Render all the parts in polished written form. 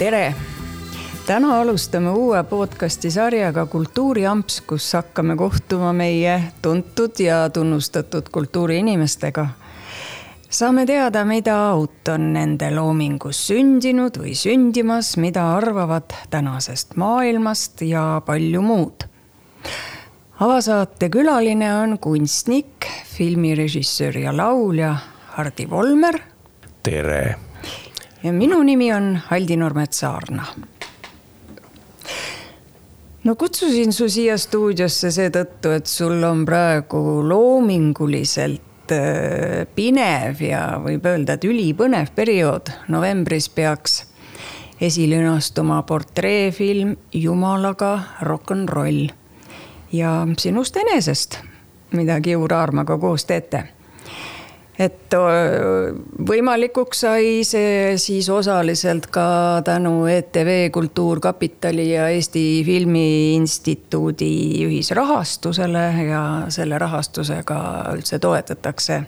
Tere! Täna alustame uue podcasti sarjaga Kultuuriamps, kus hakkame kohtuma meie tuntud ja tunnustatud kultuuriinimestega. Saame teada, mida uut on nende loomingus sündinud või sündimas, mida arvavad tänasest maailmast ja palju muud. Avasaate külaline on kunstnik, filmirežissöör ja laulja Hardi Volmer. Tere! Ja minu nimi on Haldi Normet-Saarna. No kutsusin su siia stuudiosse seetõttu, et sul on praegu loominguliselt pinev ja võib öelda, et ülipõnev periood. Novembris peaks esilünastuma portreefilm Jumalaga rock'n'roll ja sinust enesest, mida Kiur Aarmaga koos teete. Et võimalikuks sai see siis osaliselt ka tänu ETV Kultuurkapitali ja Eesti Filmiinstituudi ühisrahastusele ja selle rahastusega üldse toetatakse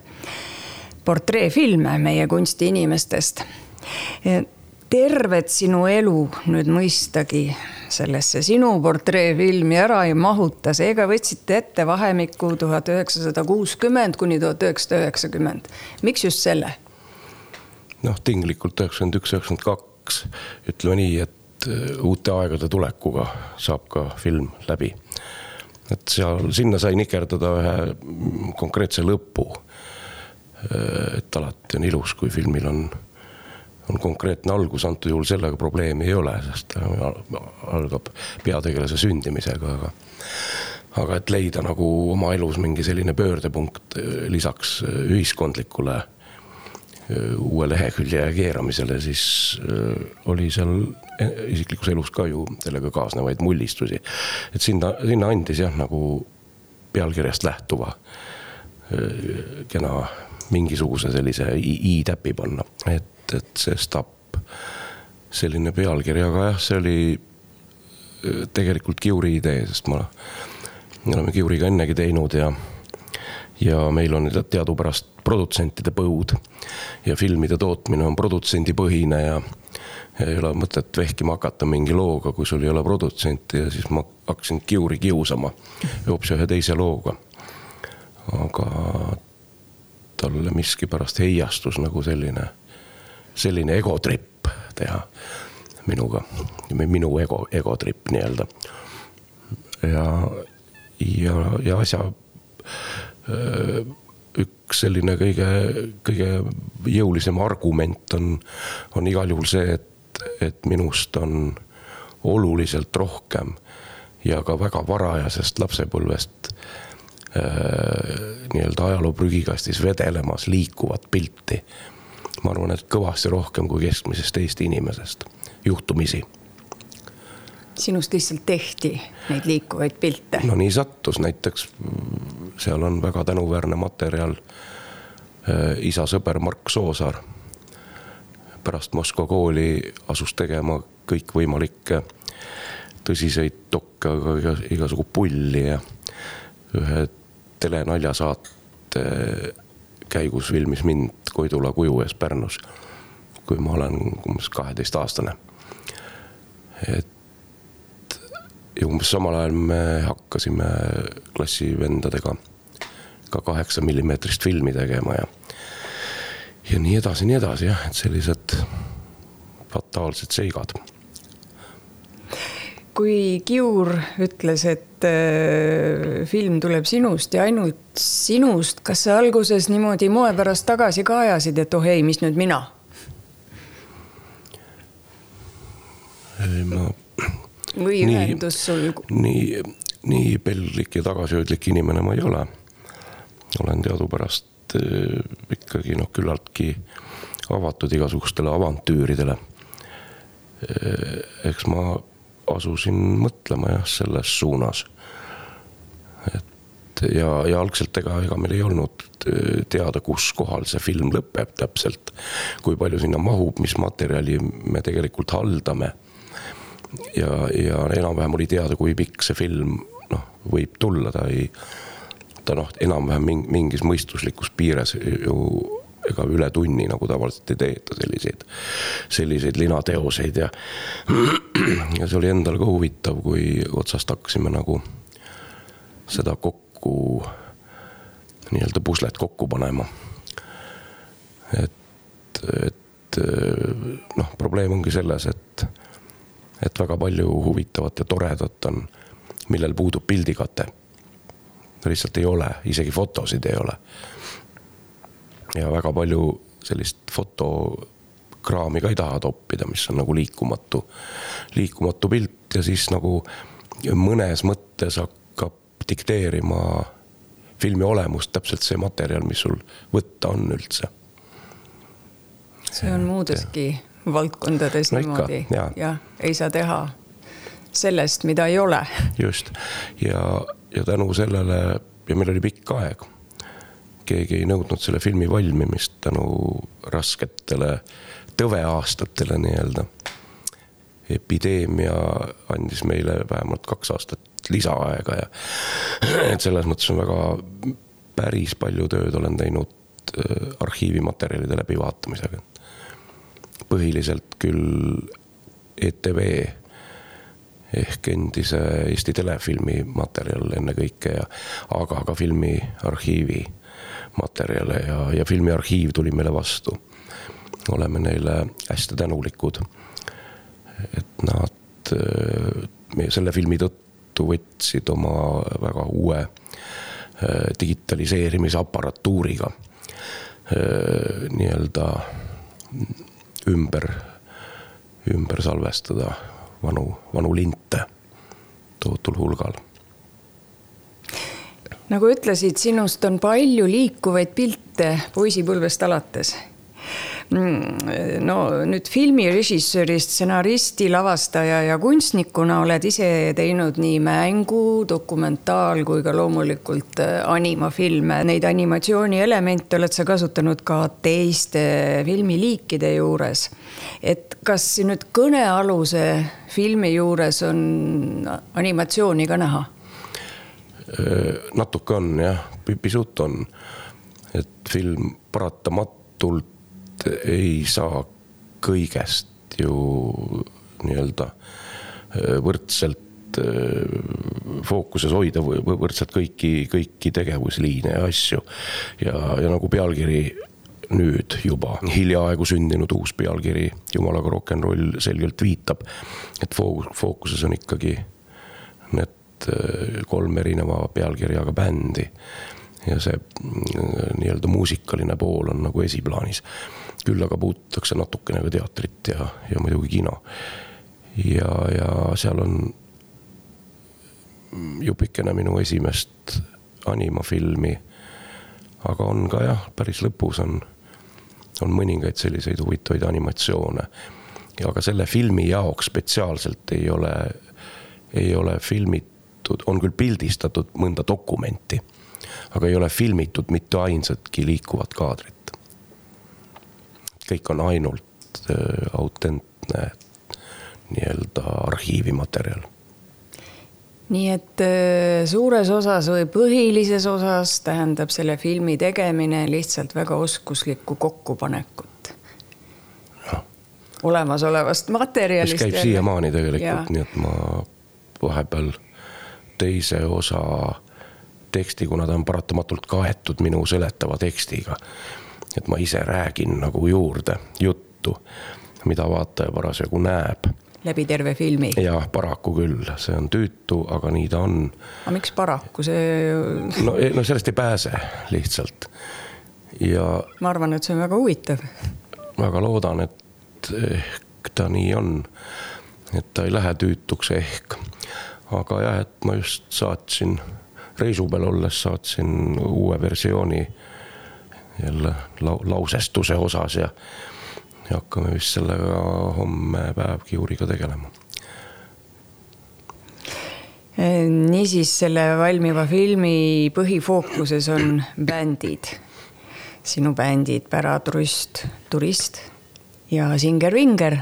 portreefilme meie kunstiinimestest. Tervet sinu elu nüüd mõistagi sellesse sinu portreefilmi ära ei mahuta. Seega võtsite ette vahemikku 1960 kuni 1990. Miks just selle? Tinglikult 91-92. Ütleme nii, et uute aegade tulekuga saab ka film läbi. Et sinna sai nikerdada ühe konkreetse lõpu. Et alati on ilus, kui filmil on konkreetne algus, antud juhul sellega probleemi ei ole, sest algab peategelase sündimisega, aga et leida nagu oma elus mingi selline pöördepunkt lisaks ühiskondlikule uue lehekülje keeramisele, siis oli seal isiklikus elus ka ju sellega kaasnevaid mullistusi. Et sinna andis nagu pealkirjast lähtuva kena mingisuguse sellise i-täpi panna, et see Stapp selline pealkirjaga, see oli tegelikult Kiuri idee, sest me oleme Kiuriga ennegi teinud ja meil on teadupärast produtsentide põud ja filmide tootmine on produtsendipõhine ja ei ole mõtet vehkima hakata mingi looga, kui sul ei ole produtsenti ja siis ma hakkasin Kiuri kiusama hoopis ühe teise looga. Aga talle miski pärast heiastus nagu selline egotripp teha minuga, minu egotripp nii-öelda. Ja asja üks selline kõige jõulisem argument on igal juhul see, et minust on oluliselt rohkem ja ka väga varajasest lapsepõlvest nii-öelda ajaloo prügikastis vedelemas liikuvat pilti. Ma arvan, et kõvasti rohkem kui keskmisest Eesti inimesest juhtumisi. Sinust lihtsalt tehti neid liikuvaid pilte? No nii sattus, näiteks seal on väga tänuväärne materjal isa sõber Mark Soosaar. Pärast Moskva kooli asus tegema kõik võimalikke tõsiseid dokke, aga igasugu pulli ja ühe telenaljasaate käigus filmis mind Koidula kuju ees Pärnus, kui ma olen 12-aastane. Ja umbes samal ajal me hakkasime klassivendadega ka 8 millimeetrist filmi tegema ja nii edasi, jah, et sellised fataalsed seigad. Kui Kiur ütles, et film tuleb sinust ja ainult sinust, kas sa alguses niimoodi moe pärast tagasi kaajasid, et ei, mis nüüd mina? Või ühendus sul? Nii pellik ja tagasihoidlik inimene ma ei ole. Olen teadupärast ikkagi küllaltki avatud igasugustele avantüüridele. Eks ma asusin mõtlema selles suunas. Ja algselt ega meil ei olnud teada, kus kohal see film lõpeb täpselt, kui palju sinna mahub, mis materjali me tegelikult haldame. Ja enam-vähem oli teada, kui pikk see film võib tulla. Ta enam-vähem mingis mõistuslikus piires ju ega üle tunni nagu tavaliselt ei teeta selliseid linateoseid ja see oli endal ka huvitav, kui otsast hakkasime nagu seda kokku, nii-öelda puslet kokku panema. Et probleem ongi selles, et väga palju huvitavat ja toredat on, millel puudub pildikate. Lihtsalt ei ole, isegi fotosid ei ole. Ja väga palju sellist fotokraami ka ei taha toppida, mis on nagu liikumatu pilt ja siis nagu mõnes mõttes hakkab dikteerima filmi olemust täpselt see materjal, mis sul võtta on üldse. See on muudeski valdkondades niimoodi ja ei saa teha sellest, mida ei ole. Just. Ja tänu sellele, ja meil oli pikk aeg, keegi ei nõudnud selle filmi valmimist tänu rasketele tõveaastatele nii-öelda. Epideemia andis meile vähemalt 2 aastat lisaaega ja et selles mõttes on väga päris palju tööd olen teinud arhiivimaterjalide läbivaatamisega. Põhiliselt küll ETV ehk endise Eesti telefilmi materjal enne kõike, aga ka filmi arhiivi materjale ja filmi arhiiv tuli meile vastu. Oleme neile hästi tänulikud, et nad selle filmi tõttu võtsid oma väga uue digitaliseerimise aparatuuriga nii-öelda ümber salvestada vanu linte tohutul hulgal. Nagu ütlesid, sinust on palju liikuvaid pilte poisipõlvest alates. No nüüd filmirežissöörist, stsenaristi, lavastaja ja kunstnikuna oled ise teinud nii mängu, dokumentaal kui ka loomulikult animafilme. Neid animatsiooni elemente oled sa kasutanud ka teiste filmiliikide juures. Et kas nüüd kõnealuse filmi juures on animatsiooni ka näha? Natuke on, jah, pisut on. Et film paratamatult ei saa kõigest ju nii-öelda võrdselt fookuses hoida, võrdselt kõiki tegevusliine ja asju. Ja nagu pealkiri nüüd juba hiljaaegu sündinud uus pealkiri Jumalaga rock'n'roll selgelt viitab, et fookuses on ikkagi need 3 erineva pealkirjaga bändi ja see nii-öelda muusikaline pool on nagu esiplaanis. Küll aga puututakse natukene ka teatrit ja muidugi kino. Ja seal on jupikene minu esimest animafilmi, aga on ka jah, päris lõpus on mõningaid selliseid huvitavaid animatsioone. Aga selle filmi jaoks spetsiaalselt ei ole filmitud, on küll pildistatud mõnda dokumenti, aga ei ole filmitud mitte ainsatki liikuvat kaadrit. Kõik on ainult autentne nii-öelda arhiivimaterjal. Nii et suures osas või põhilises osas tähendab selle filmi tegemine lihtsalt väga oskuslikku kokkupanekut. Ja. Olemasolevast materjalist. Mis käib siiamaani tegelikult, nii et ma vahepeal teise osa teksti, kuna ta on paratamatult kaetud minu seletava tekstiga, et ma ise räägin nagu juurde juttu, mida vaataja parasjagu näeb. Läbi terve filmi? Ja paraku küll, see on tüütu, aga nii ta on. Aga miks paraku? No sellest ei pääse lihtsalt. Ja ma arvan, et see on väga huvitav. Väga loodan, et ehk ta nii on, et ta ei lähe tüütuks ehk. Aga jah, et ma just saatsin, reisu peal olles saatsin uue versiooni jälle lausestuse osas ja hakkame vist sellega homme päev Kiuriga tegelema. Niisiis selle valmiva filmi põhifookuses on bändid. Sinu bändid Päratrust, Turist ja Singer Vinger.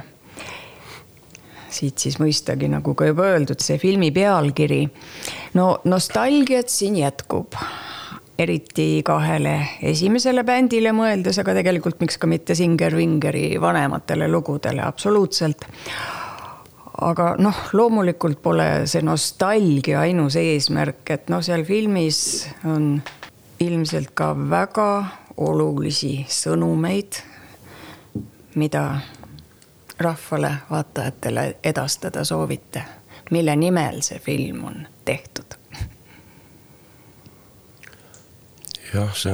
Siit siis mõistagi, nagu ka juba öeldud, see filmi pealkiri. No nostalgiat siin jätkub. eriti 2 esimesele bändile mõeldes, aga tegelikult miks ka mitte Singer Vingeri vanematele lugudele absoluutselt. Aga loomulikult pole see nostalgia ainus eesmärk, et seal filmis on ilmselt ka väga olulisi sõnumeid, mida rahvale, vaatajatele edastada soovite, mille nimel see film on tehtud? Jah, see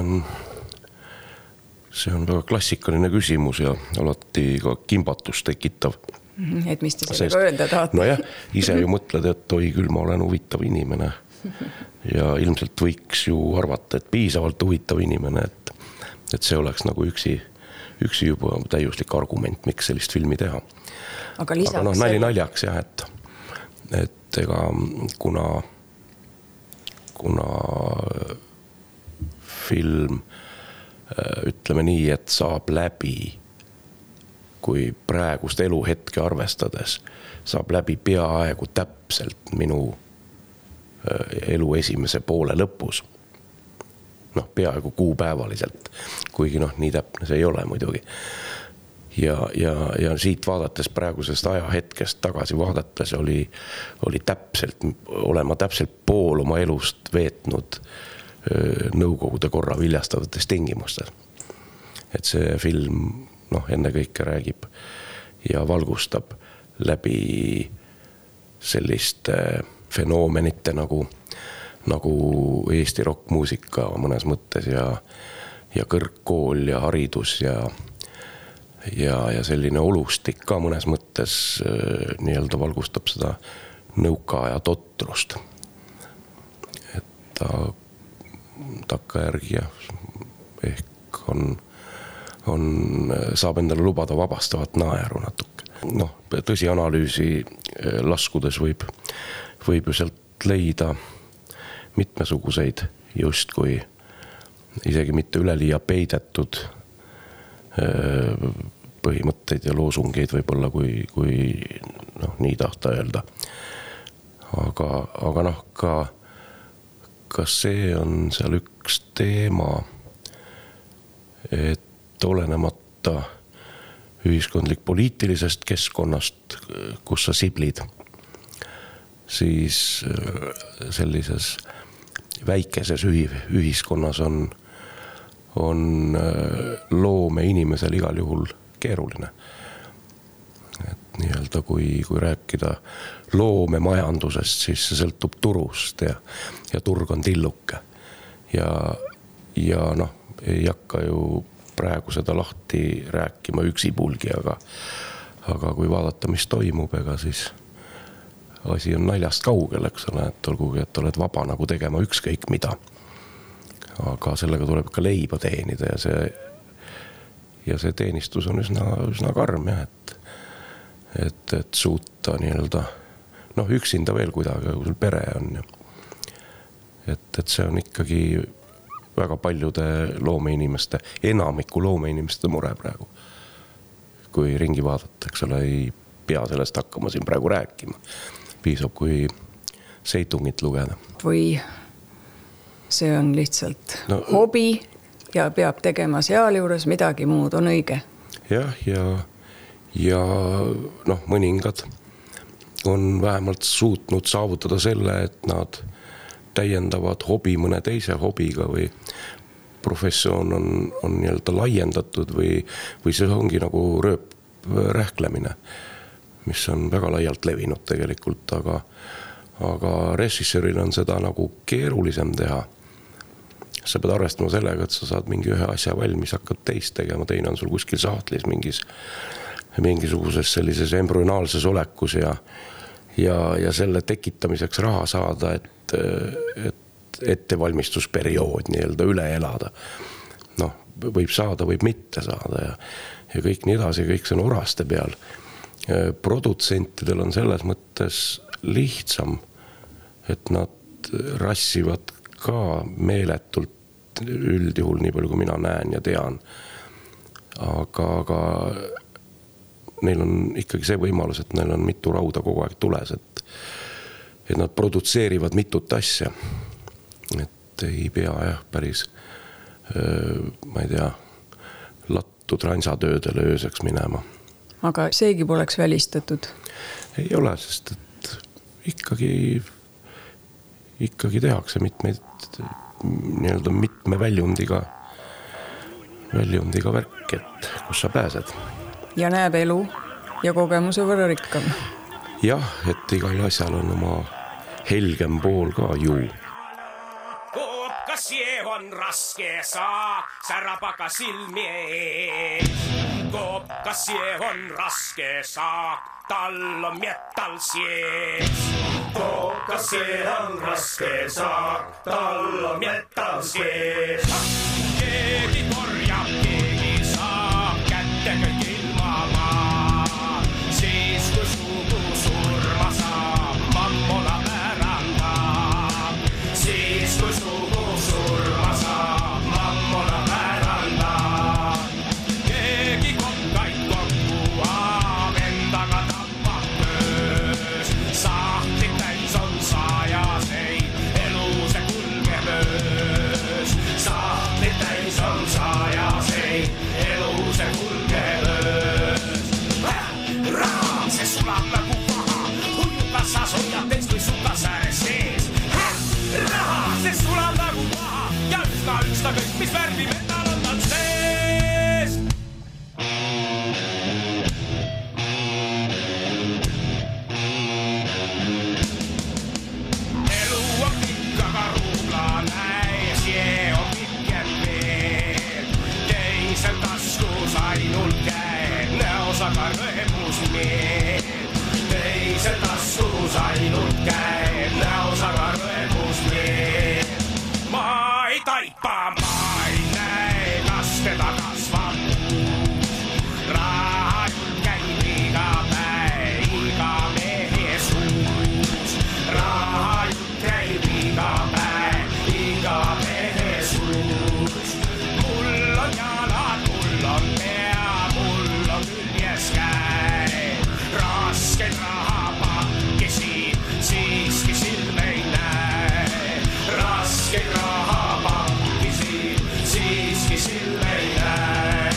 on väga klassikaline küsimus ja alati ka kimbatust tekitav. Et mis te sellega öelda tahate? No jah, ise ju mõtled, et oi küll, ma olen huvitav inimene. Ja ilmselt võiks ju arvata, et piisavalt huvitav inimene, et see oleks nagu üksi juba täiuslik argument, miks sellist filmi teha. Aga lisaks... nali naljaks jah, et ega kuna film, ütleme nii, et saab läbi, kui praegust eluhetke arvestades, saab läbi peaaegu täpselt minu elu esimese poole lõpus. Peaaegu kuupäevaliselt, kuigi nii täpne see ei ole muidugi. Ja siit vaadates praegusest ajahetkest tagasi vaadates oli olema täpselt pool oma elust veetnud Nõukogude korra viljastavates tingimustes. Et see film enne kõike räägib ja valgustab läbi selliste fenoomenite nagu Eesti rockmuusika mõnes mõttes ja kõrgkool ja haridus ja selline olustik ka mõnes mõttes nii-öelda valgustab seda nõukaaja totrust. Et takkajärgi ehk saab endale lubada vabastavat naeru natuke. Tõsi analüüsi laskudes võib ju sealt leida mitmesuguseid justkui isegi mitte üleliia peidetud põhimõtteid ja loosungeid võib-olla, kui nii tahta öelda. Aga ka see on seal üks teema, et olenemata ühiskondlik-poliitilisest keskkonnast, kus sa siblid, siis sellises väikeses ühiskonnas on loome inimesel igal juhul keeruline. Et nii-öelda kui rääkida loomemajandusest, siis see sõltub turust ja turg on tilluke. Ja ei hakka ju praegu seda lahti rääkima üksipulgi, aga kui vaadata, mis toimub, ega siis asi on naljast kaugel, eks ole, et olgugi, et oled vaba nagu tegema ükskõik mida. Aga sellega tuleb ka leiba teenida ja see teenistus on üsna karm, et suuta nii-öelda, üksinda veel kuidagi, kui sul pere on. Et see on ikkagi väga paljude loomeinimeste, enamiku loomeinimeste mure praegu. Kui ringi vaadata, eks ole, ei pea sellest hakkama siin praegu rääkima. Piisab, kui seitungit lugeda. Või see on lihtsalt hobi ja peab tegema seal juures midagi muud, on õige? Jah, ja mõningad on vähemalt suutnud saavutada selle, et nad täiendavad hobi mõne teise hobiga või professioon on nii-öelda laiendatud või see ongi nagu rööprähklemine, mis on väga laialt levinud tegelikult, aga režissööril on seda nagu keerulisem teha. Sa pead arvestama sellega, et sa saad mingi ühe asja valmis, hakkad teist tegema, teine on sul kuskil sahtlis mingisuguses sellises embrüonaalses olekus ja selle tekitamiseks raha saada, et ettevalmistusperiood nii-öelda üle elada. Võib saada, võib mitte saada ja kõik nii edasi, kõik see on oraste peal. Produtsentidel on selles mõttes lihtsam, et nad rassivad ka meeletult üldjuhul nii palju, kui mina näen ja tean. Aga neil on ikkagi see võimalus, et neil on mitu rauda kogu aeg tules, et nad produtseerivad mitut asja. ei pea jah päris, ma ei tea, lattu transatöödele ööseks minema. Aga seegi poleks välistatud? Ei ole, sest et ikkagi tehakse mitmeid nii-öelda mitme väljundiga värk, et kus sa pääsed. Ja näeb elu ja kogemuse võrra rikkam. Jah, et igal asjal on oma helgem pool ka ju. Koopkas on raske saak, särapaka silmi ees. Koopkas on raske saak, tal on metall sees. Koopkas on raske saak, tal on metall sees. Keegi korjab, keegi saab kätte kõik ilma maa. Siis kui sugu surma saab, mammona pärandab. Siis kui sugu surma saab, mammona pärandab. Keegi kokkaid kokku aab, endaga tappab töös. Sahtlik täis on saajaseid, elu see kulgeb öös. Sahtlik täis on saajaseid, elu see kulgeb öös. Raha, see sulab nagu paha, hujukas sa soljad teist või sukas ääres sees. Raha, see sulab nagu paha ja üks ta kõik, mis värvi metall on tal sees. Elu on pikk, aga ruubla näis, jee on pikem veel. Teisel taskus ainult käed, näos aga rõemus meel. Teisel taskus ainult käed, näos aga rõemus meel. Ma ei taipa, ma ei näe, kas teda kasvab uus. Raha jutt käib iga päev, iga mehe suus. Raha jutt käib iga päev, iga mehe suus. Mul on jalad, mul on pea, mul on küljes käed. Raskeid rahapakisi, siiski silme ei näe. Raskeid rahapakisi, siiski silme ei näe.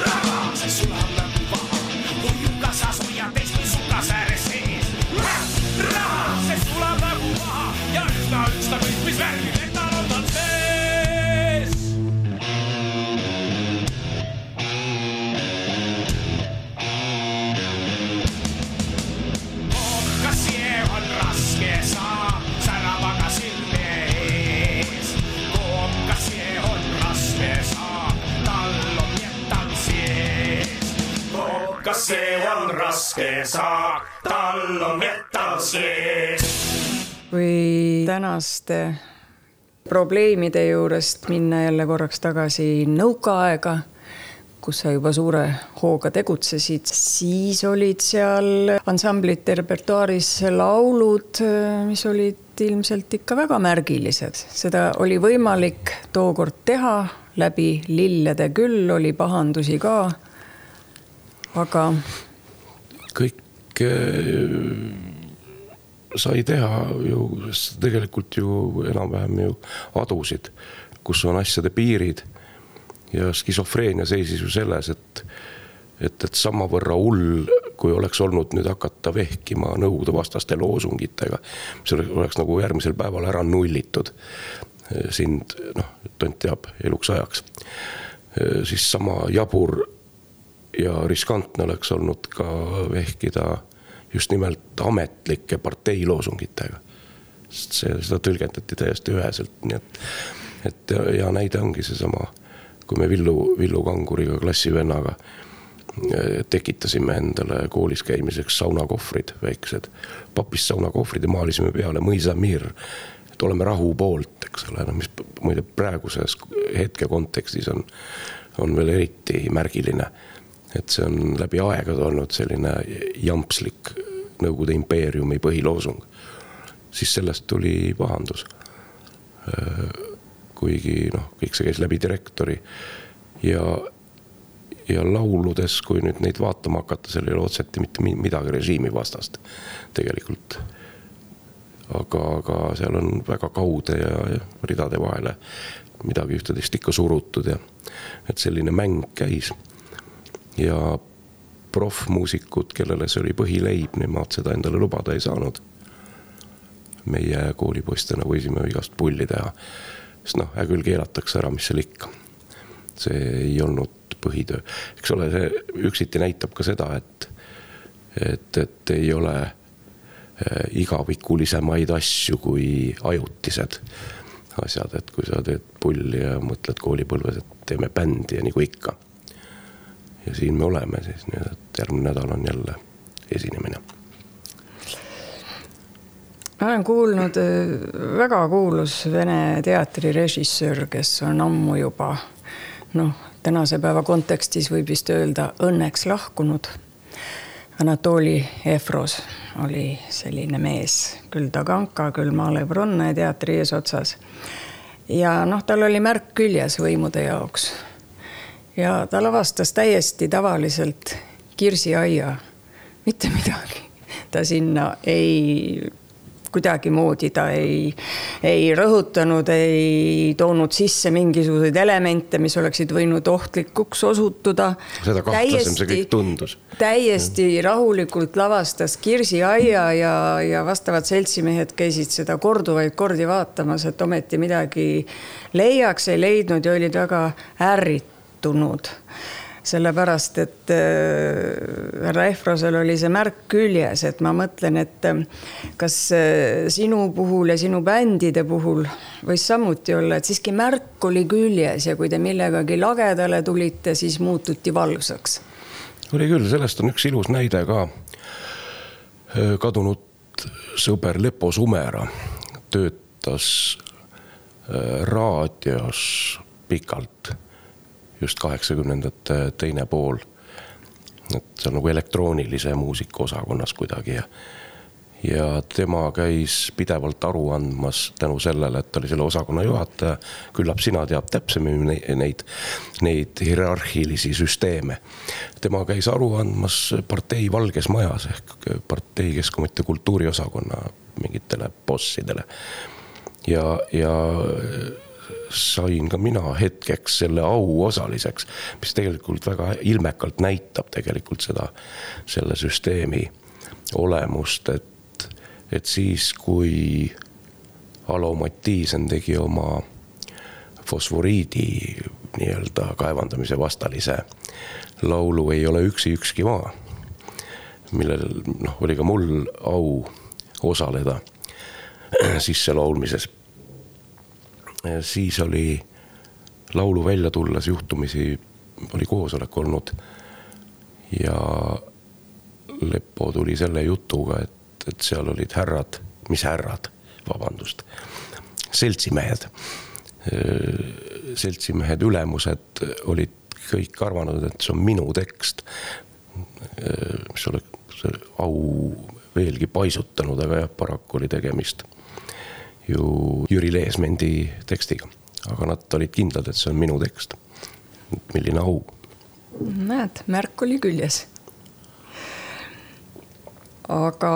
Raha, see sulab nagu paha, hujukas sa soljad teist või sukas ääres sees. Raha, see sulab nagu paha ja üks ta kõik, mis värvi metall on tal sees. Koopkas on raske saab, särab aga silme ees. Koopkas on raske saab, tal on metall sees. Koopkas on raske saab, tal on metall sees. Või tänaste probleemide juurest minna jälle korraks tagasi nõukaaega, kus sa juba suure hooga tegutsesid, siis olid seal ansamblite repertuaaris laulud, mis olid ilmselt ikka väga märgilised. Seda oli võimalik tookord teha läbi lillede küll, oli pahandusi ka, aga Kõik sai teha ju, tegelikult ju enam-vähem ju adusid, kus on asjade piirid. Ja skisofreenia seisis ju selles, et samavõrra hull, kui oleks olnud nüüd hakata vehkima nõukogude vastaste loosungitega, mis oleks nagu järgmisel päeval ära nullitud. Sind, tont teab, eluks ajaks. Siis sama jabur ja riskantne oleks olnud ka vehkida just nimelt ametlike parteiloosungitega. Seda tõlgendati täiesti üheselt. Nii et ja näide ongi see sama, kui me Villu Kanguriga klassivennaga tekitasime endale koolis käimiseks saunakohvrid väiksed. Papist saunakohvrid ja maalisime peale Mõisamir, et oleme rahu poolt, eks ole, mis muide praeguses hetke kontekstis on veel eriti märgiline. Et see on läbi aegade olnud selline jampslik Nõukogude impeeriumi põhiloosung. Siis sellest tuli pahandus. Kuigi kõik see käis läbi direktori ja lauludes, kui nüüd neid vaatama hakata, seal ei ole otseti mitte midagi režiimi vastast tegelikult. aga seal on väga kaude ja ridade vahele midagi ühtedest ikka surutud ja et selline mäng käis. Ja profmuusikud, kellele see oli põhileib, nemad seda endale lubada ei saanud. Meie koolipoistena võisime igast pulli teha, sest küll keelatakse ära, mis seal ikka. See ei olnud põhitöö. Eks ole, see üksiti näitab ka seda, et ei ole igavikulisemaid asju kui ajutised asjad, et kui sa teed pulli ja mõtled koolipõlves, et teeme bändi ja nagu ikka. Ja siin me oleme siis, nii et järgmine nädal on jälle esinemine. Ma olen kuulnud väga kuulus Vene teatrirežissöör, kes on ammu juba, tänase päeva kontekstis võib vist öelda õnneks lahkunud. Anatoli Efros oli selline mees, küll Taganka, küll Malev Ronne teatri eesotsas. Ja tal oli märk küljes võimude jaoks. Ja ta lavastas täiesti tavaliselt Kirsiaia, mitte midagi. Ta sinna kuidagi moodi ta ei rõhutanud, ei toonud sisse mingisuguseid elemente, mis oleksid võinud ohtlikuks osutuda. Seda kahtlasem see kõik tundus. Täiesti rahulikult lavastas Kirsiaia ja vastavad seltsimehed käisid seda korduvaid kordi vaatamas, et ometi midagi leiaks, ei leidnud ja olid väga ärritunud. Sellepärast, et härra Efrosel oli see märk küljes, et ma mõtlen, et kas sinu puhul ja sinu bändide puhul võis samuti olla, et siiski märk oli küljes ja kui te millegagi lagedale tulite, siis muututi valvsaks. Oli küll, sellest on üks ilus näide ka. Kadunud sõber Lepo Sumera töötas raadios pikalt. Just 80-ndate teine pool. Et see on nagu elektroonilise muusika osakonnas kuidagi. Ja tema käis pidevalt aru andmas tänu sellele, et oli selle osakonna juhataja. Küllap sina teab täpsemini neid hierarhilisi süsteeme. Tema käis aru andmas partei Valges Majas ehk partei Keskkonnamõtte kultuuriosakonna mingitele bossidele. Ja sain ka mina hetkeks selle au osaliseks, mis tegelikult väga ilmekalt näitab tegelikult selle süsteemi olemust, et siis kui Alo Mattiisen tegi oma fosforiidi nii-öelda kaevandamise vastalise laulu Ei ole ükski maa, millel oli ka mul au osaleda sisse laulmises. Siis oli laulu välja tulles juhtumisi, oli koosolek olnud ja Leppo tuli selle jutuga, et seal olid seltsimehed. Seltsimehed ülemused olid kõik arvanud, et see on minu tekst, mis oleks au veelgi paisutanud, aga paraku oli tegemist ju Jüri Leesmendi tekstiga. Aga nad olid kindlad, et see on minu tekst. Milline au. Näed, märk oli küljes. Aga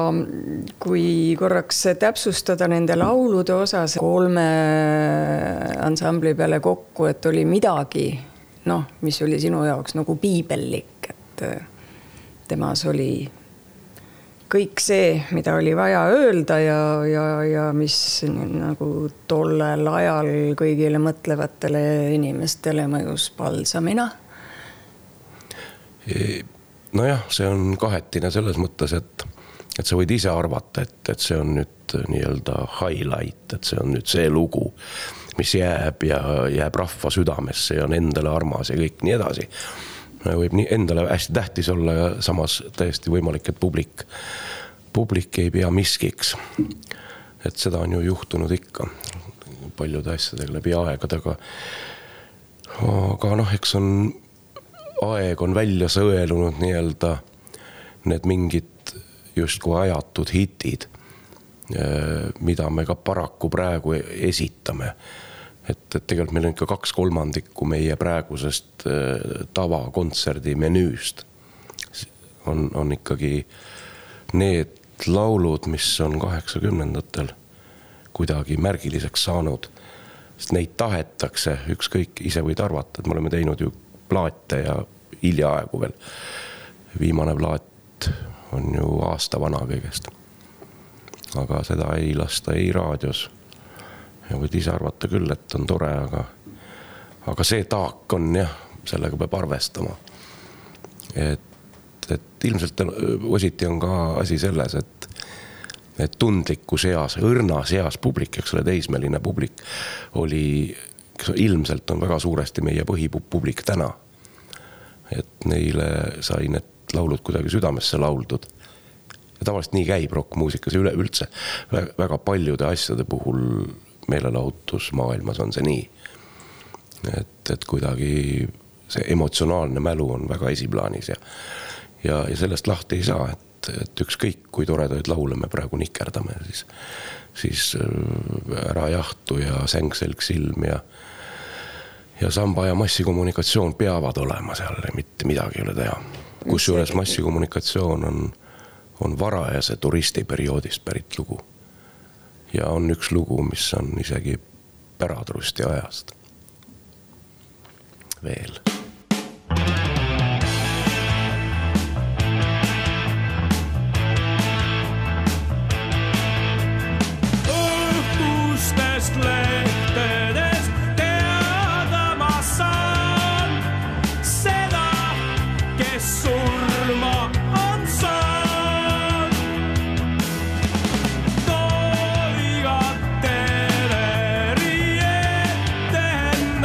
kui korraks täpsustada nende laulude osas 3 ansambli peale kokku, et oli midagi, mis oli sinu jaoks nagu piibellik, et temas oli kõik see, mida oli vaja öelda ja mis nagu tollel ajal kõigile mõtlevatele inimestele mõjus palsamina? Nojah, see on kahetine selles mõttes, et sa võid ise arvata, et see on nüüd nii-öelda highlight, et see on nüüd see lugu, mis jääb rahva südamesse ja on endale armas ja kõik nii edasi. Võib nii endale hästi tähtis olla ja samas täiesti võimalik, et publik ei pea miskiks. Et seda on ju juhtunud ikka paljude asjadega läbi aegadega. Aga eks aeg on välja sõelunud nii-öelda need mingid justkui ajatud hitid, mida me ka paraku praegu esitame. Et tegelikult meil on ikka 2/3 meie praegusest tavakontserdi menüüst. On ikkagi need laulud, mis on 80-ndatel kuidagi märgiliseks saanud. Sest neid tahetakse, ükskõik, ise võid arvata, et me oleme teinud ju plaate ja hiljaaegu veel. Viimane plaat on ju aasta vana kõigest. Aga seda ei lasta ei raadios. Ja võid ise arvata küll, et on tore, aga see taak on jah, sellega peab arvestama. Et ilmselt ositi on ka asi selles, et tundliku seas, õrna seas publik, eks ole, teismeline publik oli, ilmselt on väga suuresti meie põhipublik täna. Et neile sai need laulud kuidagi südamesse lauldud. Ja tavaliselt nii käib rockmuusikas üleüldse. Väga paljude asjade puhul meelelahutusmaailmas on see nii. Et kuidagi see emotsionaalne mälu on väga esiplaanis ja sellest lahti ei saa, et ükskõik kui toredaid laule me praegu nikerdame, siis Ära jahtu ja Sängselg silm ja samba ja massikommunikatsioon peavad olema seal, mitte midagi ei ole teha. Kusjuures massikommunikatsioon on varajase turistiperioodist pärit lugu. Ja on üks lugu, mis on isegi Päratrusti ajast. Veel. Õhtustest lehtedest teada ma saan seda, kes surma on saanud. Toigat teleri ettendan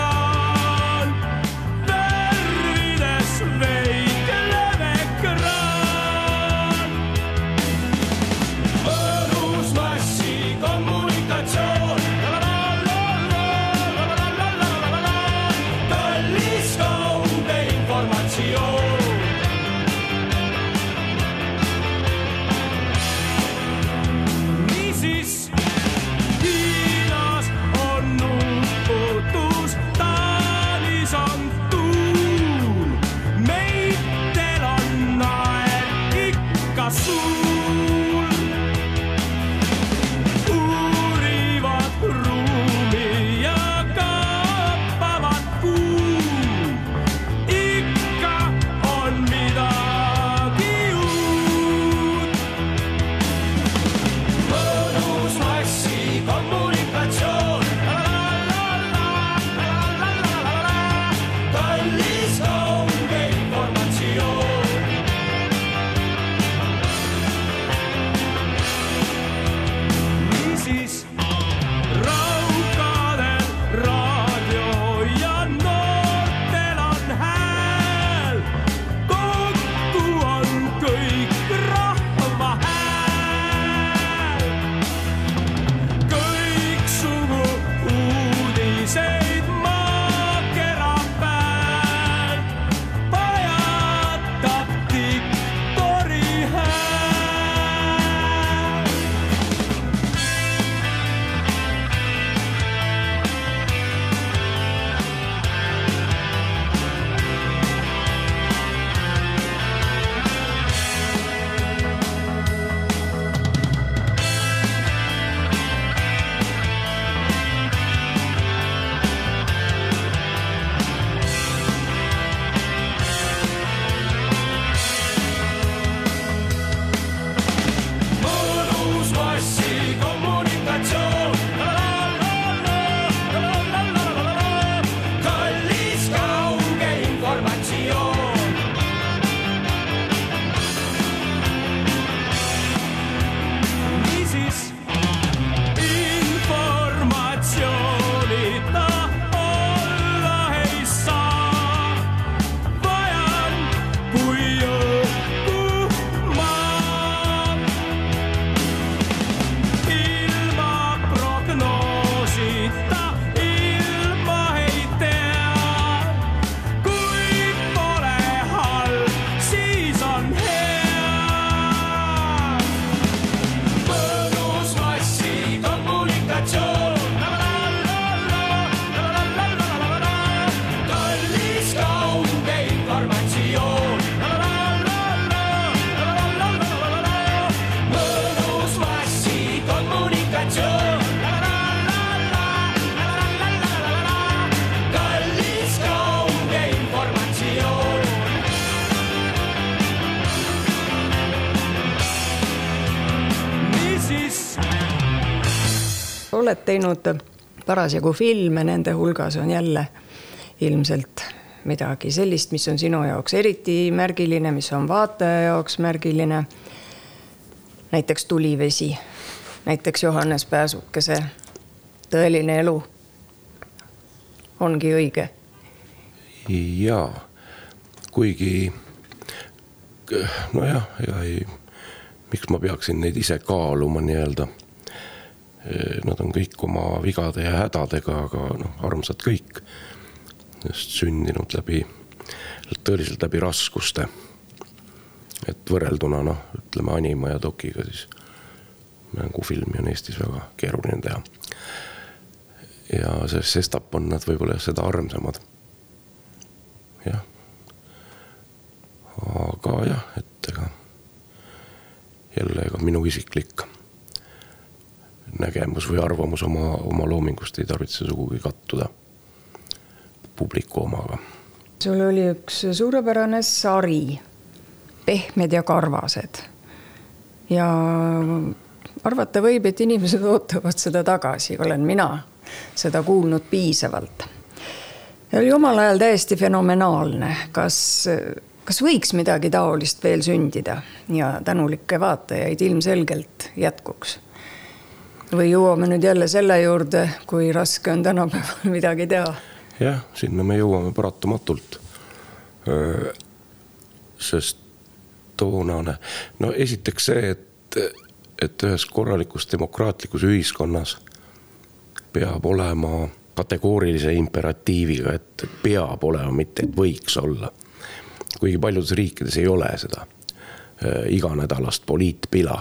oled teinud parasjagu filme, nende hulgas on jälle ilmselt midagi sellist, mis on sinu jaoks eriti märgiline, mis on vaataja jaoks märgiline. Näiteks Tulivesi, näiteks Johannes Pääsukese Tõeline elu ongi õige. Jaa, kuigi nojah, miks ma peaksin neid ise kaaluma nii-öelda. Nad on kõik oma vigade ja hädadega, aga armsad kõik. Just sündinud tõeliselt läbi raskuste. Et võrrelduna, ütleme anima ja dokiga, siis mängufilmi on Eestis väga keeruline teha. Ja sestap on nad võib-olla seda armsamad. Jah. Aga jah, et jälle minu isiklik nägemus või arvamus oma loomingust ei tarvitse sugugi kattuda publiku omaga. Sul oli üks suurepärane sari, Pehmed ja karvased. Ja arvata võib, et inimesed ootavad seda tagasi, olen mina seda kuulnud piisavalt. Ja oli omal ajal täiesti fenomenaalne. Kas võiks midagi taolist veel sündida ja tänulikke vaatajaid ilmselgelt jätkuks? Või jõuame nüüd jälle selle juurde, kui raske on tänapäeval midagi teha? Jah, sinna me jõuame paratamatult. Sest toonane, esiteks see, et ühes korralikus demokraatlikus ühiskonnas peab olema kategoorilise imperatiiviga, et peab olema, mitte et võiks olla. Kuigi paljudes riikides ei ole seda iganädalast poliitpila.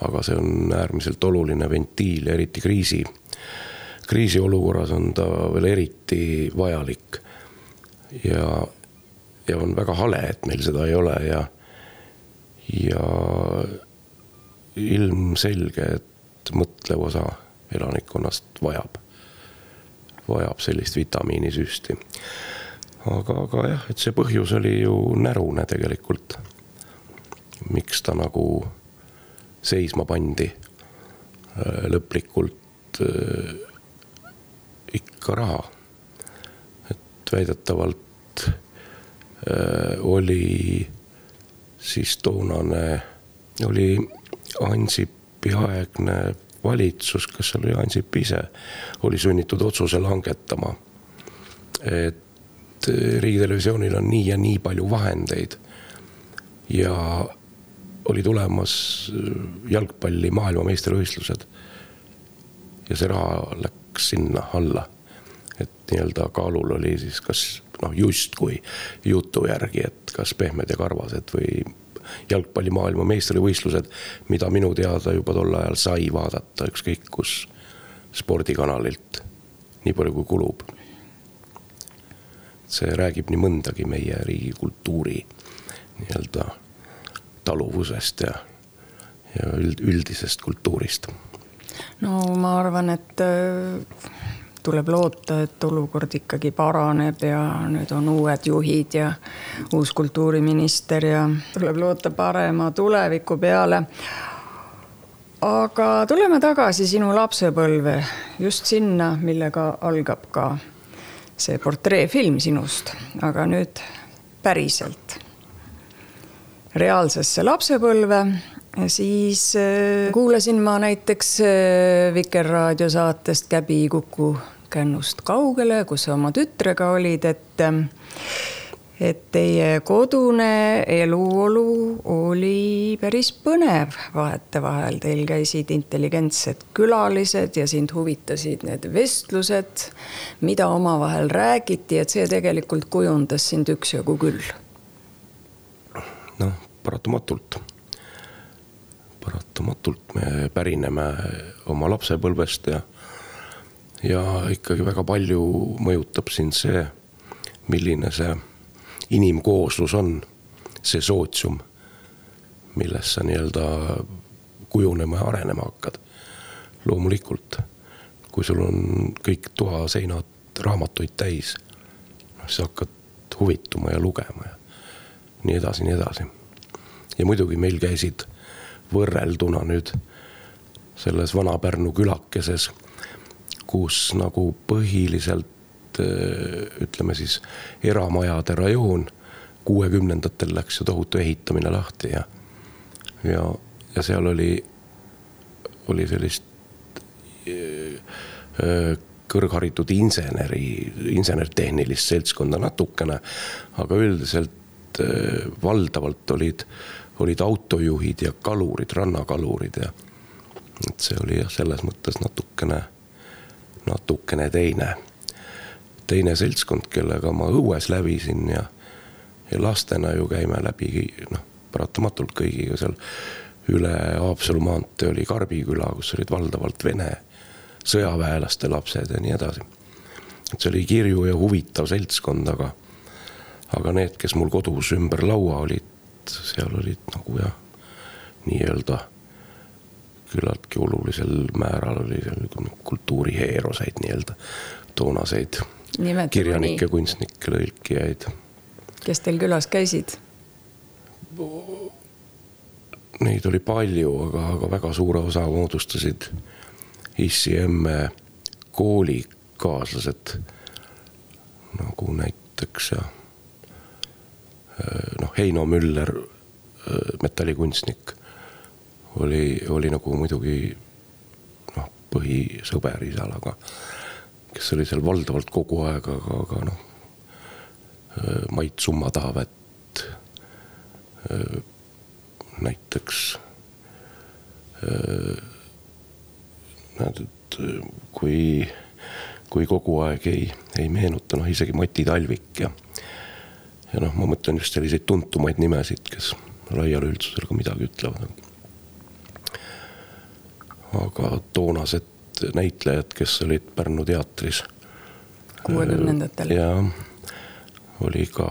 Aga see on äärmiselt oluline ventiil, eriti kriisi olukorras on ta veel eriti vajalik. Ja on väga hale, et meil seda ei ole ja ilmselge, et mõtlev osa elanikkonnast vajab sellist vitamiinisüsti. Aga jah, et see põhjus oli ju närune tegelikult. Miks ta nagu seisma pandi lõplikult ikka raha. Et väidetavalt oli siis toonane, oli Ansipi aegne valitsus, kas oli Ansip ise, oli sunnitud otsuse langetama, et riigitelevisioonil on nii ja nii palju vahendeid ja oli tulemas jalgpalli maailmameistrivõistlused ja see raha läks sinna alla, et nii-öelda kaalul oli siis kas just kui jutu järgi, et kas Pehmed ja karvased või jalgpalli maailmameistrivõistlused, mida minu teada juba tol ajal sai vaadata ükskõik kus spordikanalilt nii palju kui kulub. See räägib nii mõndagi meie riigi kultuuri nii-öelda taluvusest ja üldisest kultuurist. No ma arvan, et tuleb loota, et olukord ikkagi paraneb ja nüüd on uued juhid ja uus kultuuriminister ja tuleb loota parema tuleviku peale. Aga tuleme tagasi sinu lapsepõlve, just sinna, millega algab ka see portreefilm sinust, aga nüüd päriselt reaalsesse lapsepõlve, siis kuulasin ma näiteks Vikerraadio saatest Käbi Kuku kännust kaugele, kus oma tütrega olid, et teie kodune eluolu oli päris põnev vahete vahel. Teil käisid intelligentsed külalised ja sind huvitasid need vestlused, mida omavahel räägiti, et see tegelikult kujundas sind üksjagu küll. Paratamatult me pärineme oma lapsepõlvest ja ikkagi väga palju mõjutab siin see, milline see inimkooslus on, see sootsium, milles sa nii-öelda kujunema ja arenema hakkad. Loomulikult, kui sul on kõik toaseinad raamatuid täis, siis hakkad huvituma ja lugema ja nii edasi. Ja muidugi meil käisid võrrelduna nüüd selles Vana-Pärnu külakeses, kus nagu põhiliselt ütleme siis eramajade rajoon 60-ndatel läks ju tohutu ehitamine lahti ja seal oli sellist kõrgharitud insenertehnilist seltskonda natukene, aga üldiselt valdavalt olid autojuhid ja kalurid, rannakalurid ja et see oli selles mõttes natukene teine seltskond, kellega ma õues lävisin ja lastena ju käime läbi paratamatult kõigiga seal üle Haapsalu maantee oli Karbiküla, kus olid valdavalt Vene sõjaväelaste lapsed ja nii edasi. Et see oli kirju ja huvitav seltskond, aga need, kes mul kodus ümber laua olid, seal olid nagu nii-öelda küllaltki olulisel määral oli seal kultuuriheeroseid nii-öelda toonaseid kirjanikke, kunstnikke, lõilkijaid. Kes teil külas käisid? Neid oli palju, aga väga suure osa moodustasid issi emme koolikaaslased, nagu näiteks Heino Müller, metallikunstnik, oli nagu muidugi põhisõber isal, aga kes oli seal valdavalt kogu aeg, aga Mait Summataavet näiteks kui kogu aeg ei meenuta, isegi Mati Talvik ja ma mõtlen just selliseid tuntumaid nimesid, kes laiale üldsusele ka midagi ütlevad. Aga toonased näitlejad, kes olid Pärnu teatris 60-ndatel ja oli ka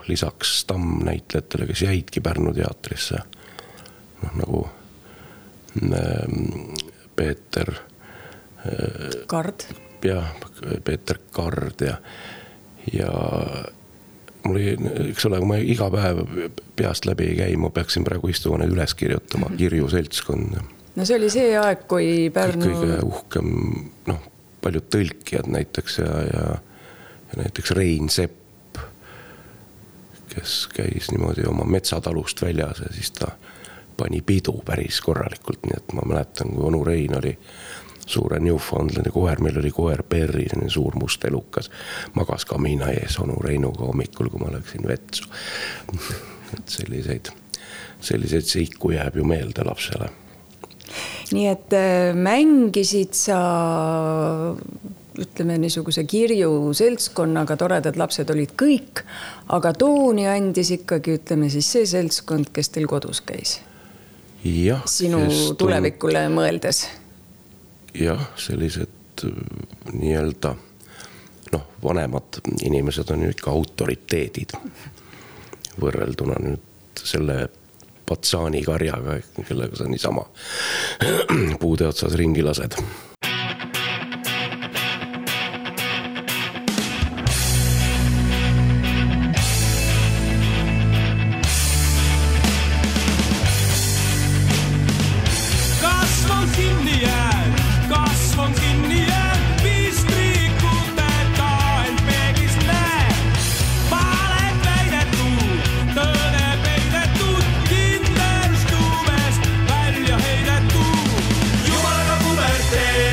lisaks stammnäitlejatele, kes jäidki Pärnu teatrisse nagu Peeter Kard Peeter Kard ja mul oli, eks ole, kui ma iga päev peast läbi ei käi, ma peaksin praegu istuma need üles kirjutama, kirju seltskond. No see oli see aeg, kui Pärnu kõige uhkem, paljud tõlkijad näiteks ja näiteks Rein Sepp, kes käis niimoodi oma metsatalust väljas ja siis ta pani pidu päris korralikult, nii et ma mäletan, kui onu Rein oli suure Newfoundlandi koer, meil oli koer Perri, suur must elukas, magas kamiina ees onu Reinuga hommikul, kui ma läksin vetsu. Et selliseid seiku jääb ju meelde lapsele. Nii et mängisid sa, ütleme niisuguse kirju seltskonnaga, toredad lapsed olid kõik, aga tooni andis ikkagi, ütleme siis see seltskond, kes teil kodus käis. Ja, sinu tulevikule mõeldes. Jah, sellised nii-öelda vanemad inimesed on ju ikka autoriteedid võrrelduna nüüd selle Patsaani karjaga, kellega sa niisama puude otsas ringi lased. Jumalaga puberteed.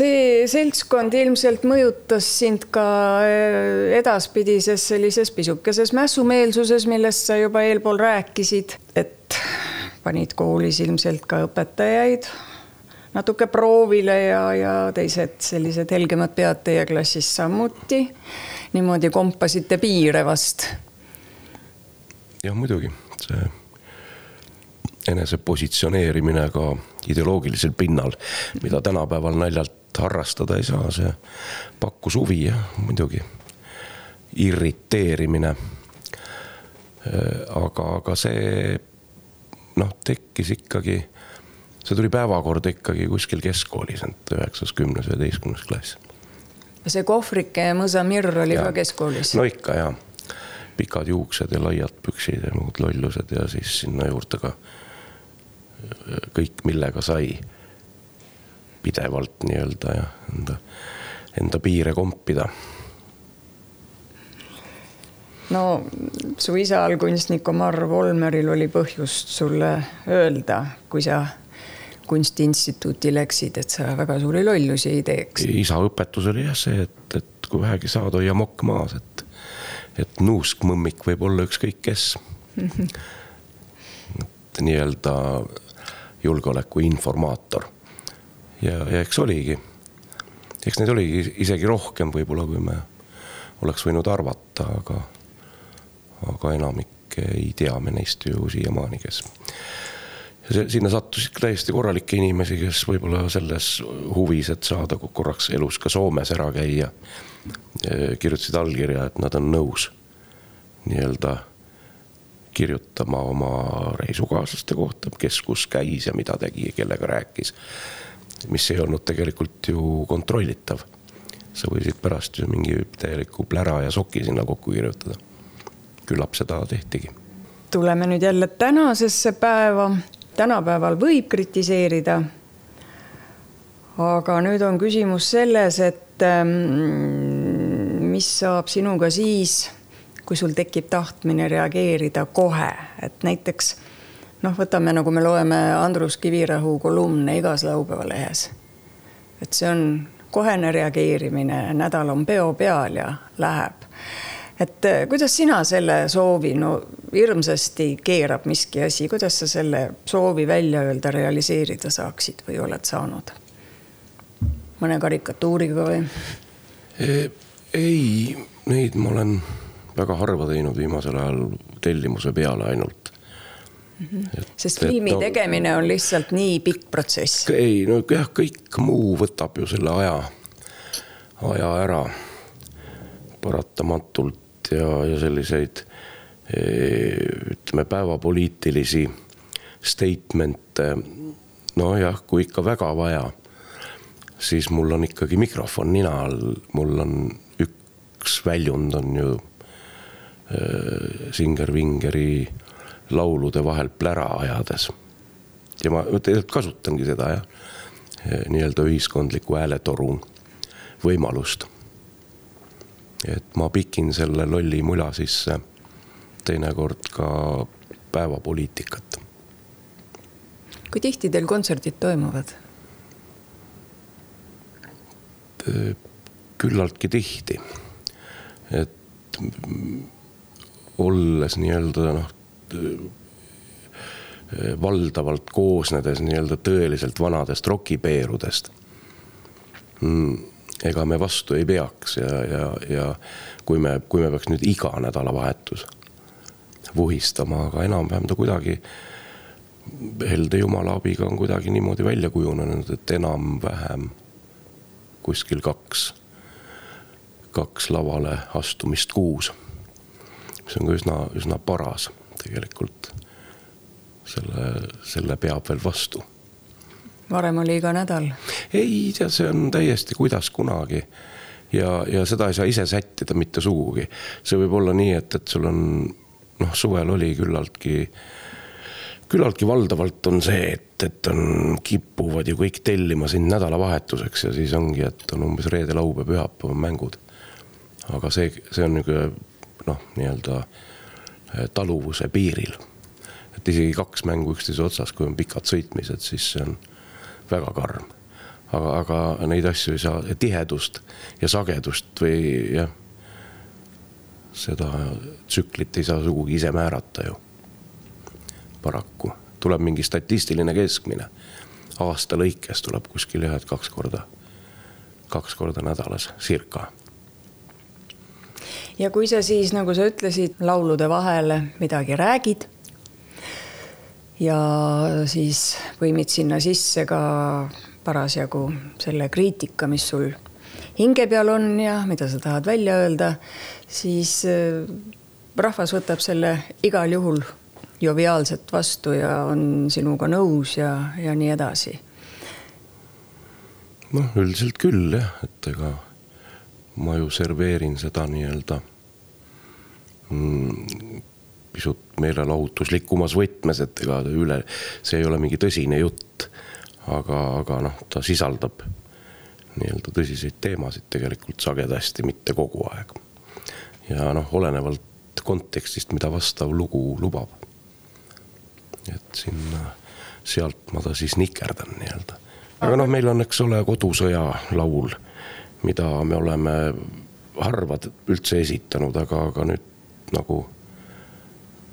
see seltskond ilmselt mõjutas sind ka edaspidises sellises pisukeses mässumeelsuses, millest sa juba eelpool rääkisid, et panid koolis ilmselt ka õpetajaid natuke proovile ja teised sellised helgemad pead teie klassis samuti. Niimoodi kompasite piire vast. Jah, muidugi. See enese positsioneerimine ka ideoloogilisel pinnal, mida tänapäeval naljalt harrastada ei saa, see pakkus huvi ja muidugi irriteerimine. Aga see tekkis ikkagi, see tuli päevakord ikkagi kuskil keskkoolis, 9., 10., 11. klass. See kohvrike ja mõsamirr oli ka keskkoolis? No ikka jah, pikad juuksed ja laiad püksid ja muud lollused ja siis sinna juurde ka kõik, millega sai pidevalt nii-öelda ja enda piire kompida. No su isal kunstnik Omar Volmeril oli põhjust sulle öelda, kui sa kunstiinstituuti läksid, et sa väga suuri lollusi ei teeks. Isa õpetus oli jah see, et kui vähegi saad, hoia mokk maas, et nuusk mõmmik võib olla ükskõik kes. Nii-öelda julgeoleku informaator. Ja eks oligi. Eks neid oligi isegi rohkem võib-olla, kui me oleks võinud arvata, aga enamik ei tea me neist ju siiamaani, kes. Ja sinna sattusid täiesti korralikke inimesi, kes võib-olla selles huvis, et saada korraks elus ka Soomes ära käia, kirjutasid allkirja, et nad on nõus nii-öelda kirjutama oma reisukaaslaste kohta, kes kus käis ja mida tegi ja kellega rääkis, mis ei olnud tegelikult ju kontrollitav. Sa võisid pärast ju mingi täieliku plära ja soki sinna kokku kirjutada. Küllap seda tehtigi. Tuleme nüüd jälle tänasesse päeva. Tänapäeval võib kritiseerida, aga nüüd on küsimus selles, et mis saab sinuga siis, kui sul tekib tahtmine reageerida kohe, et näiteks võtame, nagu me loeme Andrus Kivirahu kolumne igas laupäeva lehes, et see on kohene reageerimine, nädal on peo peal ja läheb, et kuidas sina selle soovi, hirmsasti keerab miski asi, kuidas sa selle soovi välja öelda, realiseerida saaksid või oled saanud mõne karikatuuriga või? Ei, neid ma olen väga harva teinud viimasel ajal tellimuse peale ainult. Sest filmi tegemine on lihtsalt nii pikk protsess. Ei, kõik muu võtab ju selle aja ära paratamatult ja selliseid ütleme päevapoliitilisi statemente, kui ikka väga vaja, siis mul on ikkagi mikrofon nina all, mul on üks väljund on ju Singer-Vingeri laulude vahel plära ajades. Ja ma kasutangi seda nii-öelda ühiskondliku hääletorun võimalust. Et ma pikin selle lolli mula sisse teinekord ka päevapoliitikat. Kui tihti teil kontserdid toimuvad? Küllaltki tihti. Et olles nii-öelda valdavalt koosnedes nii-öelda tõeliselt vanadest rokipeerudest, ega me vastu ei peaks ja kui me peaks nüüd iga nädalavahetus vuhistama, aga enam-vähem ta kuidagi helde jumala abiga on kuidagi niimoodi välja kujunenud, et enam-vähem kuskil kaks lavale astumist kuus. See on ka üsna paras tegelikult. Selle peab veel vastu. Varem oli iga nädal? Ei, see on täiesti kuidas kunagi. Ja seda ei saa ise sättida mitte sugugi. See võib olla nii, et sul on, suvel oli küllaltki valdavalt on see, et on kippuvad ju kõik tellima siin nädalavahetuseks ja siis ongi, et on umbes reede, laupäev, pühapäev mängud. Aga see on nii-öelda taluvuse piiril. Et isegi 2 mängu üksteise otsas, kui on pikad sõitmised, siis see on väga karm. aga neid asju ei saa, tihedust ja sagedust või jah, seda tsüklit ei saa sugugi ise määrata ju. Paraku tuleb mingi statistiline keskmine. Aasta lõikes tuleb kuskil 2 korda nädalas, circa. Ja kui sa siis, nagu sa ütlesid, laulude vahele midagi räägid ja siis võimid sinna sisse ka parasjagu selle kriitika, mis sul hinge peal on ja mida sa tahad välja öelda, siis rahvas võtab selle igal juhul joviaalselt vastu ja on sinuga nõus ja nii edasi. Noh, üldiselt küll jah, et ega ma ju serveerin seda nii-öelda pisut meelelahutuslikumas võtmes, et ega see ei ole mingi tõsine jutt, aga noh, ta sisaldab nii-öelda tõsiseid teemasid tegelikult sagedasti, mitte kogu aeg. Ja noh, olenevalt kontekstist, mida vastav lugu lubab. Et sealt ma ta siis nikerdan nii-öelda. Aga noh, meil on, eks ole, kodusõja laul, mida me oleme harvad üldse esitanud, aga nüüd nagu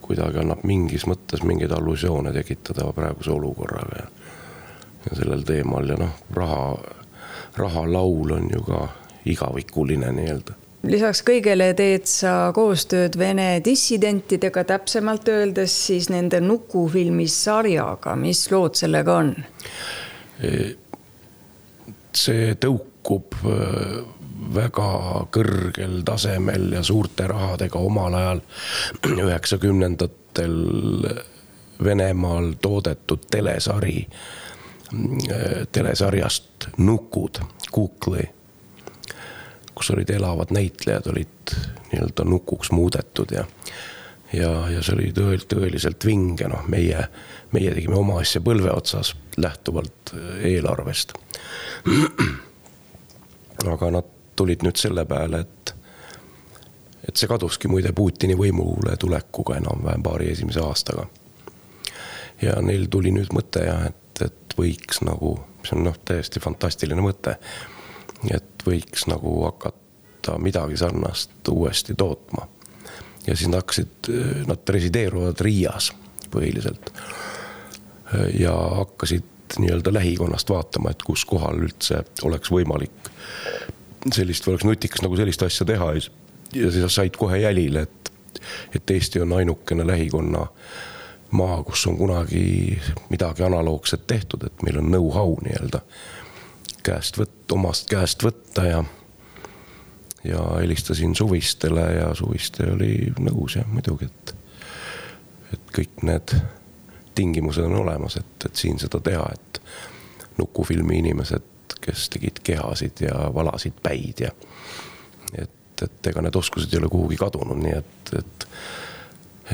kuidagi annab mingis mõttes mingeid allusioone tekitada praeguse olukorraga ja sellel teemal ja noh, raha laul on ju ka igavikuline nii-öelda. Lisaks kõigele teed sa koostööd Vene dissidentidega, täpsemalt öeldes siis nende Nuku-filmi sarjaga. Mis lood sellega on? See tõukub väga kõrgel tasemel ja suurte rahadega omal ajal 90-ndatel Venemaal toodetud telesarjast Nukud, Kukli, kus olid elavad näitlejad, olid nii-öelda nukuks muudetud ja see oli tõeliselt vinge. No, meie tegime oma asja põlve otsas lähtuvalt eelarvest. Aga nad tulid nüüd selle peale, et see kaduski muide Putini võimule tulekuga enam-vähem paari esimese aastaga. Ja neil tuli nüüd mõte, et võiks nagu, see on täiesti fantastiline mõte, et võiks nagu hakata midagi sarnast uuesti tootma. Ja siis nad resideeruvad Riias põhiliselt ja hakkasid nii-öelda lähikonnast vaatama, et kus kohal üldse oleks võimalik sellist või oleks nutikas nagu sellist asja teha ja siis said kohe jälile, et Eesti on ainukene lähikonna maa, kus on kunagi midagi analoogset tehtud, et meil on know-how nii-öelda omast käest võtta ja helistasin Suvistele ja Suviste oli nõus ja muidugi, et kõik need tingimused on olemas, et siin seda teha, et Nukufilmi inimesed, kes tegid kehasid ja valasid päid ja et ega need oskused ei ole kuhugi kadunud, nii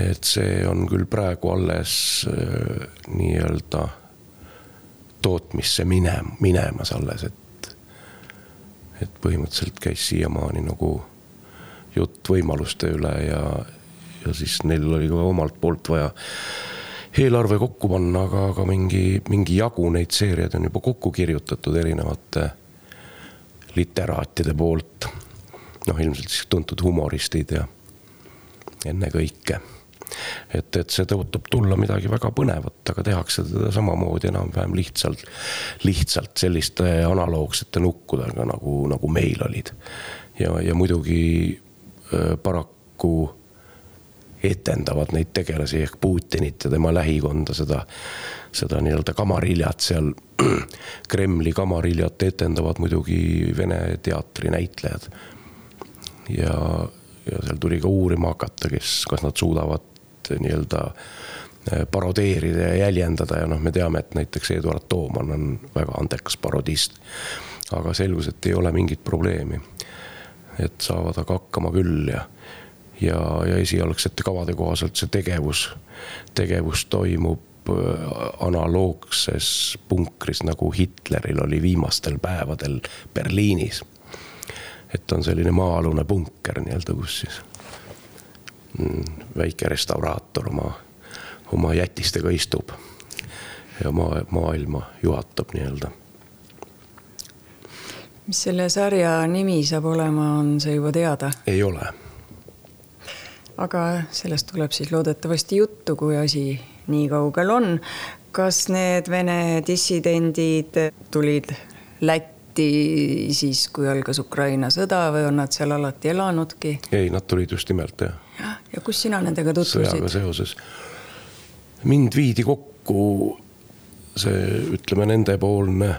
et see on küll praegu alles nii-öelda tootmisse minemas alles, et põhimõtteliselt käis siiamaani nagu jutt võimaluste üle ja siis neil oli ka omalt poolt vaja eelarve kokku panna, aga mingi jagu neid seeriad on juba kokku kirjutatud erinevate literaatide poolt. Noh, ilmselt siis tuntud humoristid ja enne kõike. Et see tõotab tulla midagi väga põnevat, aga tehakse teda samamoodi enam-vähem lihtsalt selliste analoogsete nukkudega, nagu meil olid. Ja muidugi paraku etendavad neid tegelasi ehk Putinit ja tema lähikonda seda nii-öelda kamariljat seal, Kremli kamariljat etendavad muidugi Vene teatri näitlejad. Ja seal tuli ka uurima hakata, kas nad suudavad nii-öelda parodeerida ja jäljendada ja me teame, et näiteks Eduard Tooman on väga andekas parodist, aga selgus, et ei ole mingit probleemi, et saavad aga hakkama küll ja esialgsete kavade kohaselt see tegevus toimub analoogses punkris, nagu Hitleril oli viimastel päevadel Berliinis. Et on selline maa-alune punker nii-öelda, kus siis väike restauraator oma jätistega istub ja maailma juhatab nii-öelda. Mis selle sarja nimi saab olema, on see juba teada? Ei ole. Aga sellest tuleb siis loodetavasti juttu, kui asi nii kaugel on. Kas need Vene dissidendid tulid Lätti siis, kui algas Ukraina sõda või on nad seal alati elanudki? Ei, nad tulid just nimelt, jah. Ja kus sina nendega tutvusid? Sõjaga seoses. Mind viidi kokku see, ütleme, nendepoolne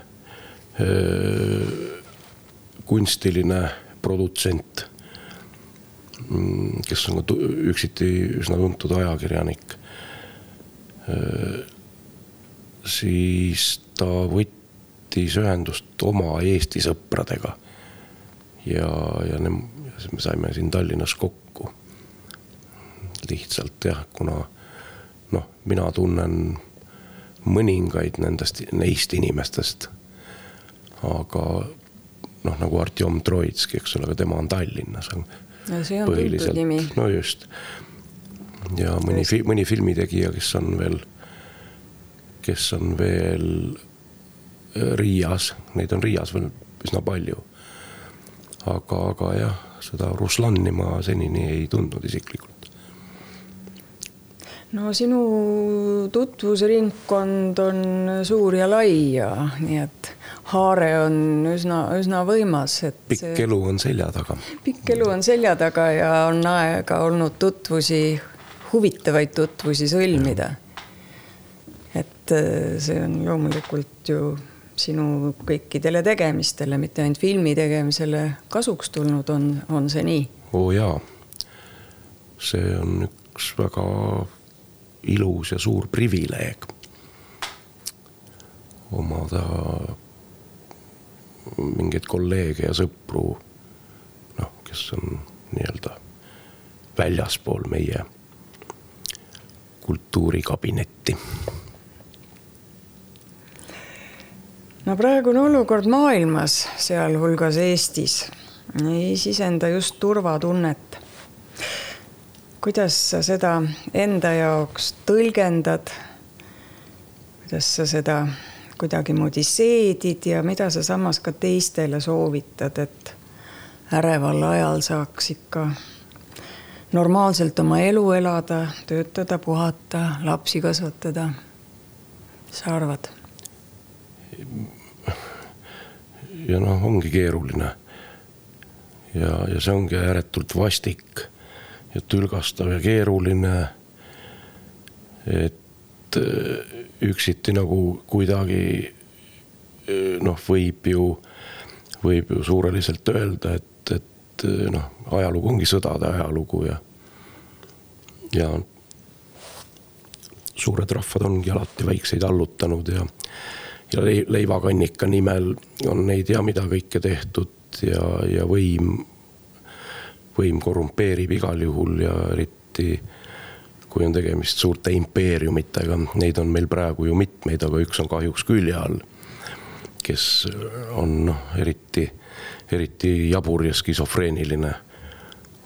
kunstiline produtsent, kes on üksiti üsna tuntud ajakirjanik. Siis ta võttis ühendust oma Eesti sõpradega ja me saime siin Tallinnas kokku. Lihtsalt jah, kuna mina tunnen mõningaid neist inimestest, aga nagu Artjom Troitski, eks ole, aga tema on Tallinnas. Ja see on tuntud nimi. No just. Ja mõni filmitegija, kes on veel Riias, neid on Riias veel üsna palju. Aga jah, seda Ruslanni ma senini ei tundnud isiklikult. No sinu tutvusringkond on suur ja lai ja nii et haare on üsna võimas. Pikk elu on selja taga. Pikk elu on selja taga ja on aega olnud huvitavaid tutvusi sõlmida. Et see on loomulikult ju sinu kõikidele tegemistele, mitte ainult filmi tegemisele kasuks tulnud, on see nii? Jaa, see on üks väga ilus ja suur privileeg omada mingeid kolleege ja sõpru, kes on nii-öelda väljaspool meie kultuurikabinetti. No praegune olukord maailmas, sealhulgas Eestis, ei sisenda just turvatunnet. Kuidas sa seda enda jaoks tõlgendad? Kuidas sa seda kuidagi moodi seedid ja mida sa samas ka teistele soovitad, et äreval ajal saaks ikka normaalselt oma elu elada, töötada, puhata, lapsi kasvatada? Mis sa arvad? Ja ongi keeruline. Ja see ongi ääretult vastik. Ja tülgastav ja keeruline, et üksiti nagu kuidagi võib ju suureliselt öelda, et ajalugu ongi sõdade ajalugu ja suured rahvad ongi alati väikseid allutanud ja leivakannika nimel on neid ja mida kõike tehtud ja võim korrumpeerib igal juhul ja eriti kui on tegemist suurte impeeriumitega. Neid on meil praegu ju mitmeid, aga üks on kahjuks külje all, kes on eriti jabur ja skisofreeniline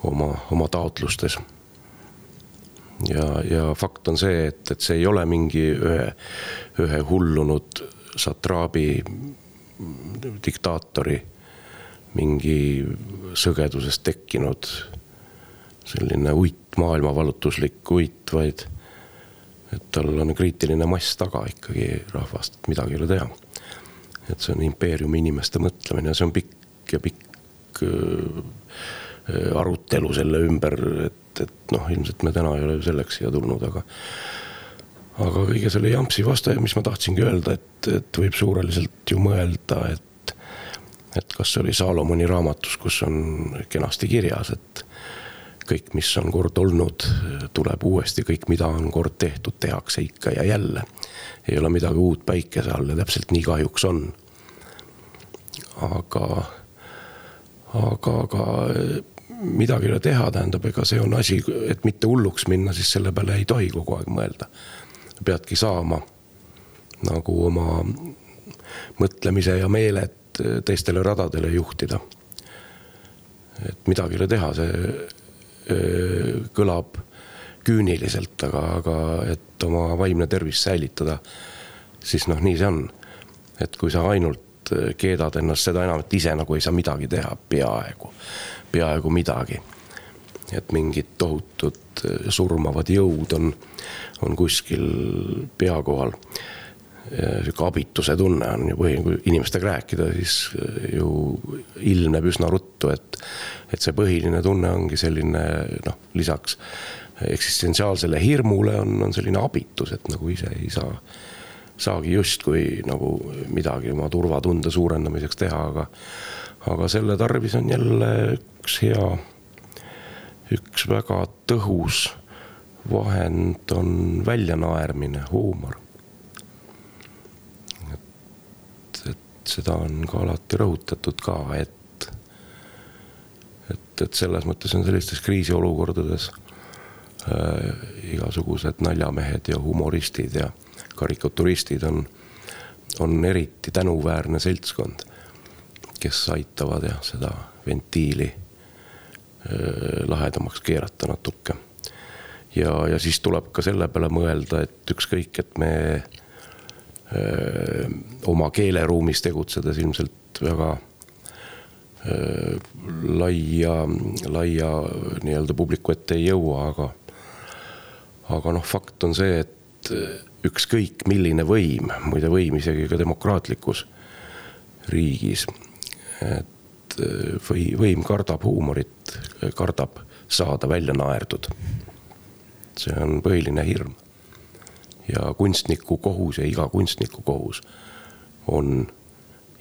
oma taotlustes. Ja fakt on see, et see ei ole mingi ühe hullunud satraabi diktaatori mingi sõgedusest tekkinud selline maailmavalutuslik vaid et tal on kriitiline mass taga ikkagi rahvast, et midagi ei ole teha. Et see on impeeriumi inimeste mõtlemine ja see on pikk arutelu selle ümber, et ilmselt me täna ei ole selleks siia tulnud, aga kõige selle jampsi vastu, mis ma tahtsingi öelda, et võib suureliselt ju mõelda, et kas see oli Saalomoni raamatus, kus on kenasti kirjas, et kõik, mis on kord olnud, tuleb uuesti, kõik, mida on kord tehtud, tehakse ikka ja jälle. Ei ole midagi uut päikese all ja täpselt nii kahjuks on. Aga midagi ei ole teha, tähendab, ega see on asi, et mitte hulluks minna, siis selle peale ei tohi kogu aeg mõelda. Peadki saama nagu oma mõtlemise ja meeled teistele radadele juhtida. Et midagi ei ole teha, see kõlab küüniliselt, aga et oma vaimne tervis säilitada, siis nii see on. Et kui sa ainult keedad ennast seda enam, et ise nagu ei saa midagi teha, peaaegu midagi. Et mingid tohutud surmavad jõud on kuskil pea kohal. Siuke abituse tunne on ju kui inimestega rääkida, siis ju ilmneb üsna ruttu, et see põhiline tunne ongi selline, lisaks eksistentsiaalsele hirmule on selline abitus, et nagu ise ei saagi just kui nagu midagi oma turvatunde suurendamiseks teha, aga selle tarvis on jälle üks väga tõhus vahend on väljanaermine, huumor. Et seda on ka alati rõhutatud ka, et selles mõttes on sellistes kriisiolukordades igasugused naljamehed ja humoristid ja karikaturistid on eriti tänuväärne seltskond, kes aitavad seda ventiili lahedamaks keerata natuke. Ja siis tuleb ka selle peale mõelda, et ükskõik, et me oma keeleruumis tegutsedes ilmselt väga laia nii-öelda publiku ette ei jõua, aga fakt on see, et ükskõik milline võim, muide võim isegi ka demokraatlikus riigis, et võim kardab huumorit, kardab saada välja naerdud. See on põhiline hirm. Ja kunstniku kohus ja iga kunstniku kohus on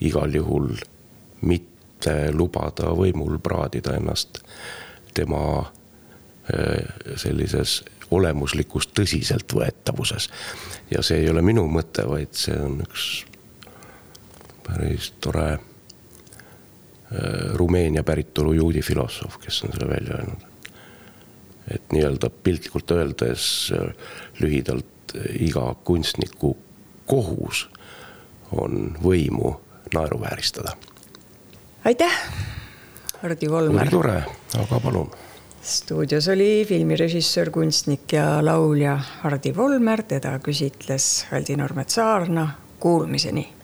igal juhul mitte lubada võimul praadida ennast tema sellises olemuslikus tõsiseltvõetavuses. Ja see ei ole minu mõte, vaid see on üks päris tore Rumeenia päritolu juudi filosoof, kes on selle välja öelnud. Et nii-öelda piltlikult öeldes lühidalt iga kunstniku kohus on võimu naeruvääristada. Aitäh, Hardi Volmer. Oli tore, aga palun. Stuudios oli filmirežissöör, kunstnik ja laulja Hardi Volmer, teda küsitles Aldi Normet Saarna. Kuulmiseni!